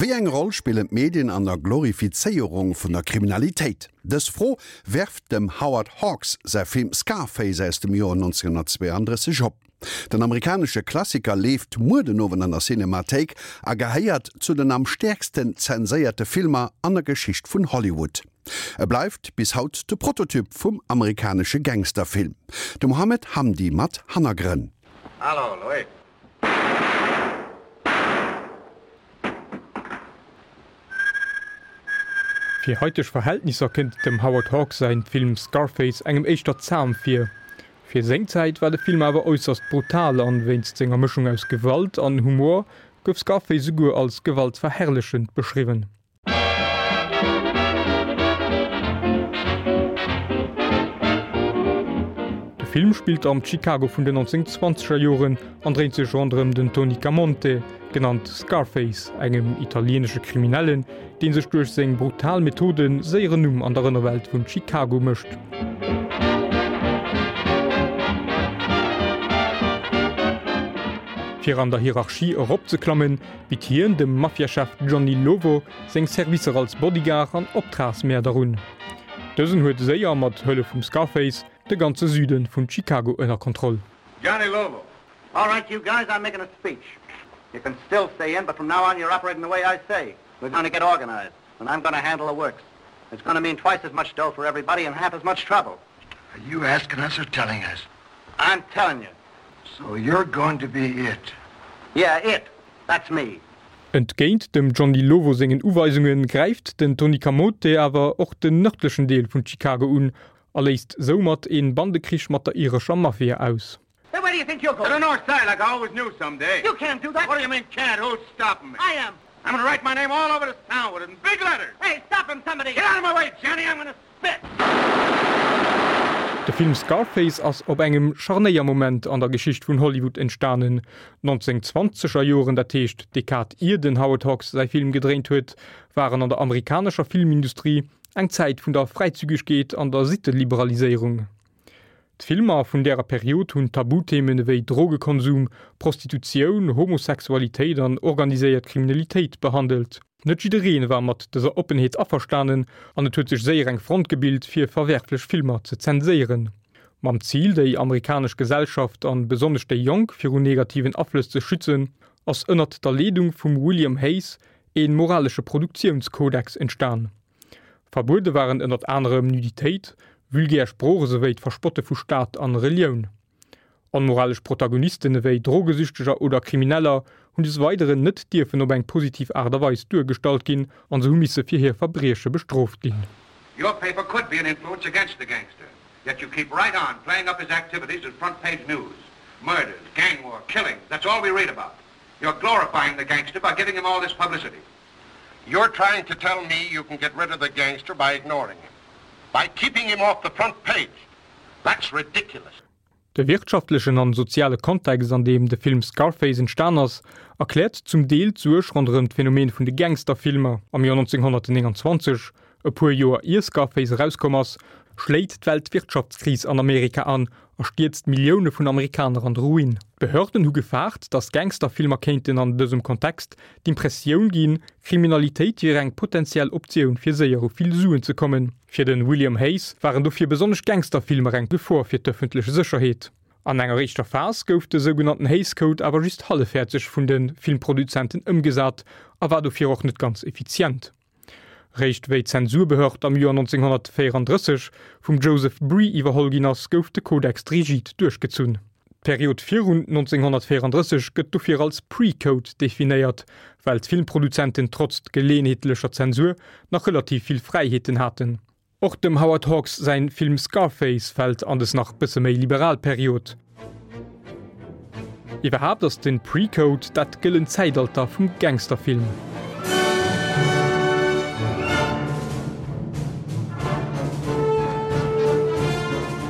Wéi eng Roll spillen d'Medien an der Glorifizéierung vun der Kriminalitéit? Dës Fro werft dem Howard Hawks säi Film Scarface aus dem Joer 1932 op. Den amerikanesche Klassiker leeft muer den Owend an der Cinemathéik a gehéiert zu den am stäerksten zenséierte Filmer an der Geschicht vun Hollywood. E bleift bis haut de Prototyp vum amerikanesche Gangsterfilm. De Mohamed Hamdi mat Hannergrënn. Hallo, Louis. Fir haiteg Verhältnisser kënnt dem Howard Hawks säin Film Scarface engem éischter zam vir. Fir seng Zäit war de Film awer äusserst brutal an wéinst senger Mëschung aus Gewalt an Humor gouf Scarface souguer als gewaltverherrlechend beschriwwen. De Film spillt am Chicago vun den 1920er Joren an dréint sech ronderëm den Tony Camonte, genannt Scarface, engem italieenesche Kriminellen, dee sech duerch seng brutal Methode séier en Numm an der Ënnerwelt vun Chicago mécht. Fir an der Hierarchie eropzeklammen, bitt hien dem Mafiachef Johnny Lovo seng Servicer als Bodyguard an Optragsmäerder un. Dësen huet séier, mat Hëllef vum Scarface, de ganze Süde vun Chicago ënner Kontroll. Johnny Lovo, All right you guys, I'm making a speech. You can still stay in, but from now on you're operating the way I say. We're gonna get organized, and I'm gonna handle the works. It's gonna mean twice as much dough for everybody and half as much trouble. Are you asking us or telling us? I'm telling you. So you're going to be it? Yeah, it. That's me. Entgéint dem Johnny Lovo sengen Uweisunge gräift den Tony Camote awer och den nërdlechen Deel vun Chicago un a léist soumat een Bandekrich mat der irescher Mafia aus. Hey, where do you think you're going? To the north side, like I always knew someday. You can't do that. What do you mean can't? Who's stopping me? I am. I'm gonna write my name all over this town with it in big letters. Hey, stop him, somebody. Get out of my way, Johnny. I'm gonna spit. De Film Scarface ass op engem Scharnéiermoment an der Geschicht vun Hollywood entstanen. D'Nonzéngzwanzeger Joren, dat heescht d'Dekad ier den Howard Hawks säi Film gedréint huet, waren an der amerikanescher Filmindustrie eng Zäit vun der Fräizügegkeet an der Sitteliberaliséierung. D'Filmer vun därer Period hunn Tabuthemen ewéi Drogekonsum, Prostitutioun, Homosexualitéit an organiséiert Kriminalitéit behandelt. Net jidderee war mat dëser Oppenheet averstanen an et huet sech séier eng Front gebilt fir verwerflech Filmer ze zenséieren. Mam Zil déi amerikanesch Gesellschaft an besonnesch déi Jonk viru negativen Aflëss ze schützen, ass ënnert der Leedung vum William Hays ee moralesche Produktiounskodex entstan. Verbuede waren ënnert anerem Nuditéit, vulgär Sprooch esouwéi d'Verspotte vu Staat an Relioun. Onmoralesch Protagonisten ewéi Drogesüchteger oder Krimineller hunn des Weideren net dierfen op eng positiv Aart a Weis duergestallt ginn an se hu misse fir hir Verbrieche bestrooft ginn. Your paper could be an influence against the gangster, yet you keep right on playing up his activities as front page news. Murders, gang war, killings, that's all we read about. You're glorifying the gangster by giving him all this publicity. You're trying to tell me you can get rid of the gangster by ignoring him, by keeping him off the front page. That's ridiculous. De wirtschaftlechen an soziale Kontext, an deem de Film Scarface entstan ass, erkläert zum Deel d'Suerg ronderëm d'Phänomen vun de Gangsterfilmer. Am Joer 1929, e puer Joer ier Scarface erauskomm ass, schléit d'Weltwirtschaftskris an Amerika an a stierzt Millioune vun Amerikaner an de Ruin. D'Behörden hu gefaart, datt Gangsterfilmer kéinten an dësem Kontext d'Impressioun ginn, Kriminalitéit wier eng potentiell Optioun fir séier u vill Suen ze kommen. Fir de William Hays waren dofir besonnesch Gangsterfilmer eng Gefor fir d'ëffentlech Sécherheet. An enger éischter Phas gouf de sougenannten Hays Code awer just hallefhäerzeg vun de Filmproduzenten ëmgesat a war dofir och net ganz effizient. Réischt wéi d'Zensurbehörd am Joer 1934 vum Joseph Bree iwwerholl ginn ass, gouf de Kodex rigid duerchgezunn. D'Period virun 1934 gëtt dofir als Pre-Code definéiert, well d'Filmproduzenten trotz geleeënheetlecher Zensur nach relativ vill Fräiheeten haten. Och dem Howard Hawks säin Film Scarface fält an des nach bësse méi liberal Period. Iwwerhaapt ass den Pre-Code dat gëllent Zäitalter vum Gangsterfilm.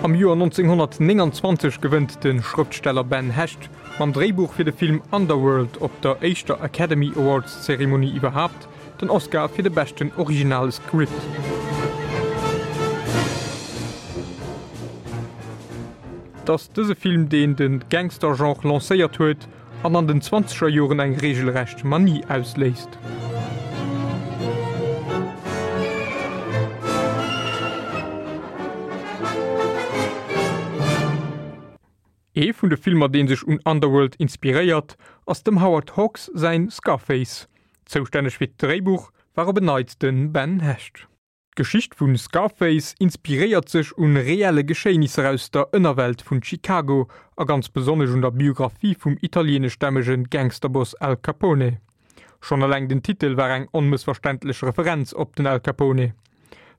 Am Joer 1929 gewënnt de Schrëftsteller Ben Hecht mam Dréibuch fir de Film Underworld op der éischter Academy Awards Zeremonie iwwerhaapt Den Oscar fir de beschten originale Script. Et ass dëse Film, deen de Gangster-Genre lancéiert huet an an den zwanzeger Joren eng reegelrecht Manie ausléist. Ee vun de Filmer dee sech un Underworld inspiréiert, ass dem Howard Hawks säin Scarface. Zoustänneg fir d'Dréibuch war op en Neits de Ben Hecht. D'Geschicht vu Scarface inspiréiert sech un reelle Geschéinisser aus der Ënnerwelt vun Chicago a ganz besonnesch un der Biographie vum italieeneschstämmege Gangsterboss Al Capone. Schonn eleng den Titel war eng onmëssverständlech Referenz op den Al Capone.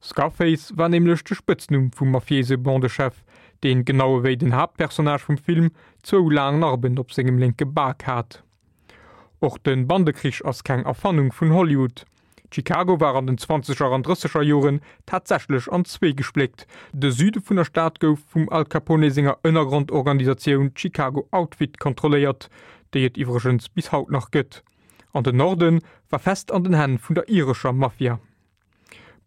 Scarface war nämlech de Spëtznumm vum mafiéise Bandechef, deen, genau ewéi den Haaptpersonnage vum Film, zwou laang Narben op sengem lénke Bak hat. Och de Bandekrich ass keng Erfannung vun Hollywood. Chicago war an den zwanzeger an drësseger Joren tatsächlech an zwee gespléckt, De Süde vun der Stad gouf vum Al Capone senger Ënnergrondorganisatioun Chicago Outfit kontrolléiert, déi et iwwregens bis haut nach gëtt, an den Norde war fest an den Hänn vun der irescher Mafia.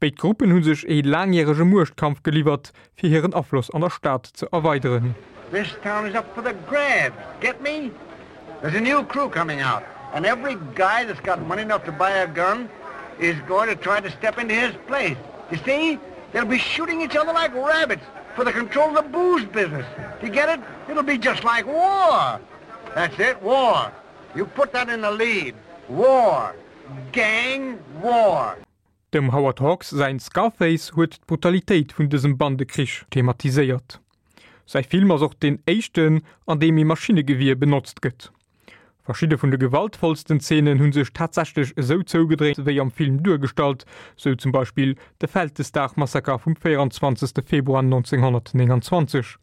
Béid Gruppen hu sech ee laangjärege Muechtkampf geliwwert, fir hiren Afloss an der Stad ze erweideren. This town is up for the grabs, get me? There's a new crew coming out, and every guy that's got money enough to buy a gun is going to try to step into his place. You see? They'll be shooting each other like rabbits for the control of the booze business. Do you get it? It'll be just like war. That's it, war. You put that in the lead. War. Gang war. Dem Howard Hawks säin Scarface huet d'Brutalitéit vun dësem Bandekrich thematiséiert. Säi Film ass och deen éischten, an deem ee Maschinnegewier benotzt gëtt. Verschidde vun de gewaltvollsten Zeenen hu sech tatsächlech esou zougedréint wéi am Film duergestallt, sou zum Beispill de Vältesdag-Massaker vum 24. Februar 1929.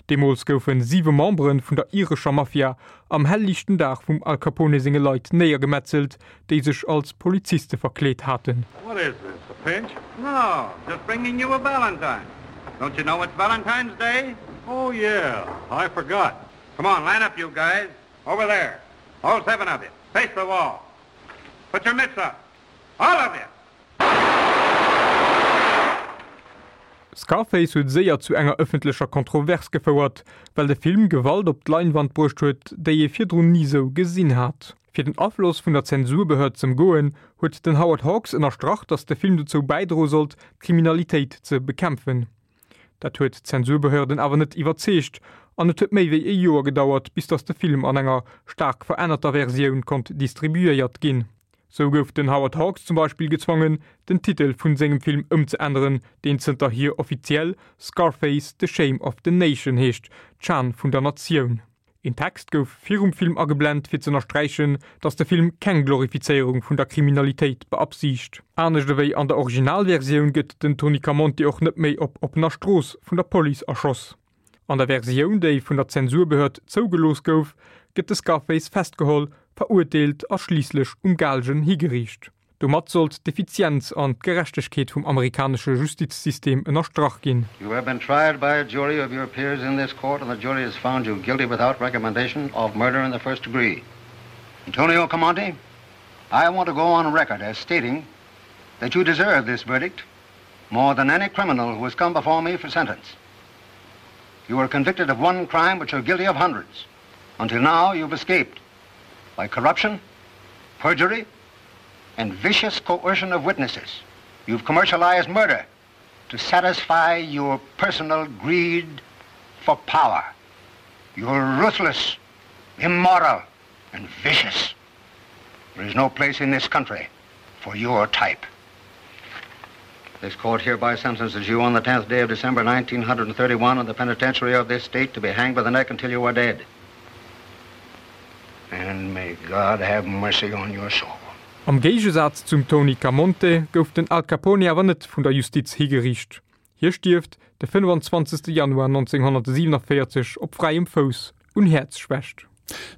Deemools goufe siwe Membere vun der irescher Mafia am hellliichten Dag vum Al Capone senge Leit néiergemetzelt, déi sech als Poliziste verkleet haten. What is this, a pinch? No, just bringing you a valentine. Don't you know it's Valentine's Day? Oh yeah, I forgot. Come on, line up you guys. Over there. All seven of you. Face the wall. Put your mitts up. All of you! Scarface huet séier zu enger ëffentlecher Kontrovers gefouert, well de Film Gewalt op d'Leinwand bruecht huet, déi ee virdrun ni sou gesinn hat. Fir den Afloss vun der Zensurbehörd z'ëmgoen, huet den Howard Hawks ënnerstrach, datt de Film dozou bäidroe sollt, d'Kriminalitéit ze bekämpfen. Dat huet d'Zensurbehörden awer net iwwerzeegt an et huet méi wéi e Joer gedauert, bis datt de Film an enger staark verännerter Versioun konnt distribuéiert ginn. Sou gouf den Howard Hawks zum Beispill gezwongen, den Titel vun sengem Film ëmzeänneren, deen zënterhier offiziell Scarface, The Shame of the Nation heescht, d'Schan vun der Natioun. Een Text gouf virum Film ageblent, fir z'ënnersträichen, datt de Film keng Glorifizéierung vun der Kriminalitéit beabsiicht. Anescht ewéi an der Originalversioun gëtt den Tony Camonte och net méi op oppener Strooss vun der Police erschoss. An der Versioun, déi vun der Zensurbehörd zougelooss gouf, gëtt de Scarface festgeholl, verurteelt a schliisslech um Gaalgen higeriicht. Domat sollt d'Effizienz an d'Gerechtegkeet vum amerikanesche Justizsystem ënnerstrach ginn. You have been tried by a jury of your peers in this court and the jury has found you guilty without recommendation of murder in the first degree. Antonio Camonte, I want to go on record as stating that you deserve this verdict more than any criminal who has come before me for sentence. You are convicted of one crime, but you're guilty of hundreds. Until now, you've escaped by corruption, perjury, and vicious coercion of witnesses. You've commercialized murder to satisfy your personal greed for power. You're ruthless, immoral, and vicious. There is no place in this country for your type. This court hereby sentences you on the 10th day of December 1931 in the penitentiary of this state to be hanged by the neck until you are dead. And may God have mercy on your soul. Am Géigesaz zum Tony Camonte gouf den Al Capone awer net vun der Justiz higeriicht. Hie stierft de 25 Januar 1947 op fräiem Fouss un Häerzschwächt.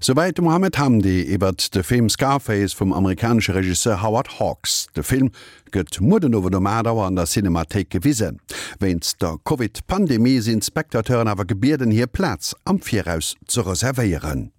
Souwäit de Mohamed Hamdi iwwert de Film Scarface vum amerikanesche Regisseur Howard Hawks. De Film gëtt muer den Owend um 8 Auer an der Cinemathéik gewisen. Wéinst der Covid-Pandemie sinn d'Spectateuren awer gebieden, hir Plaz am Viraus ze reservéieren.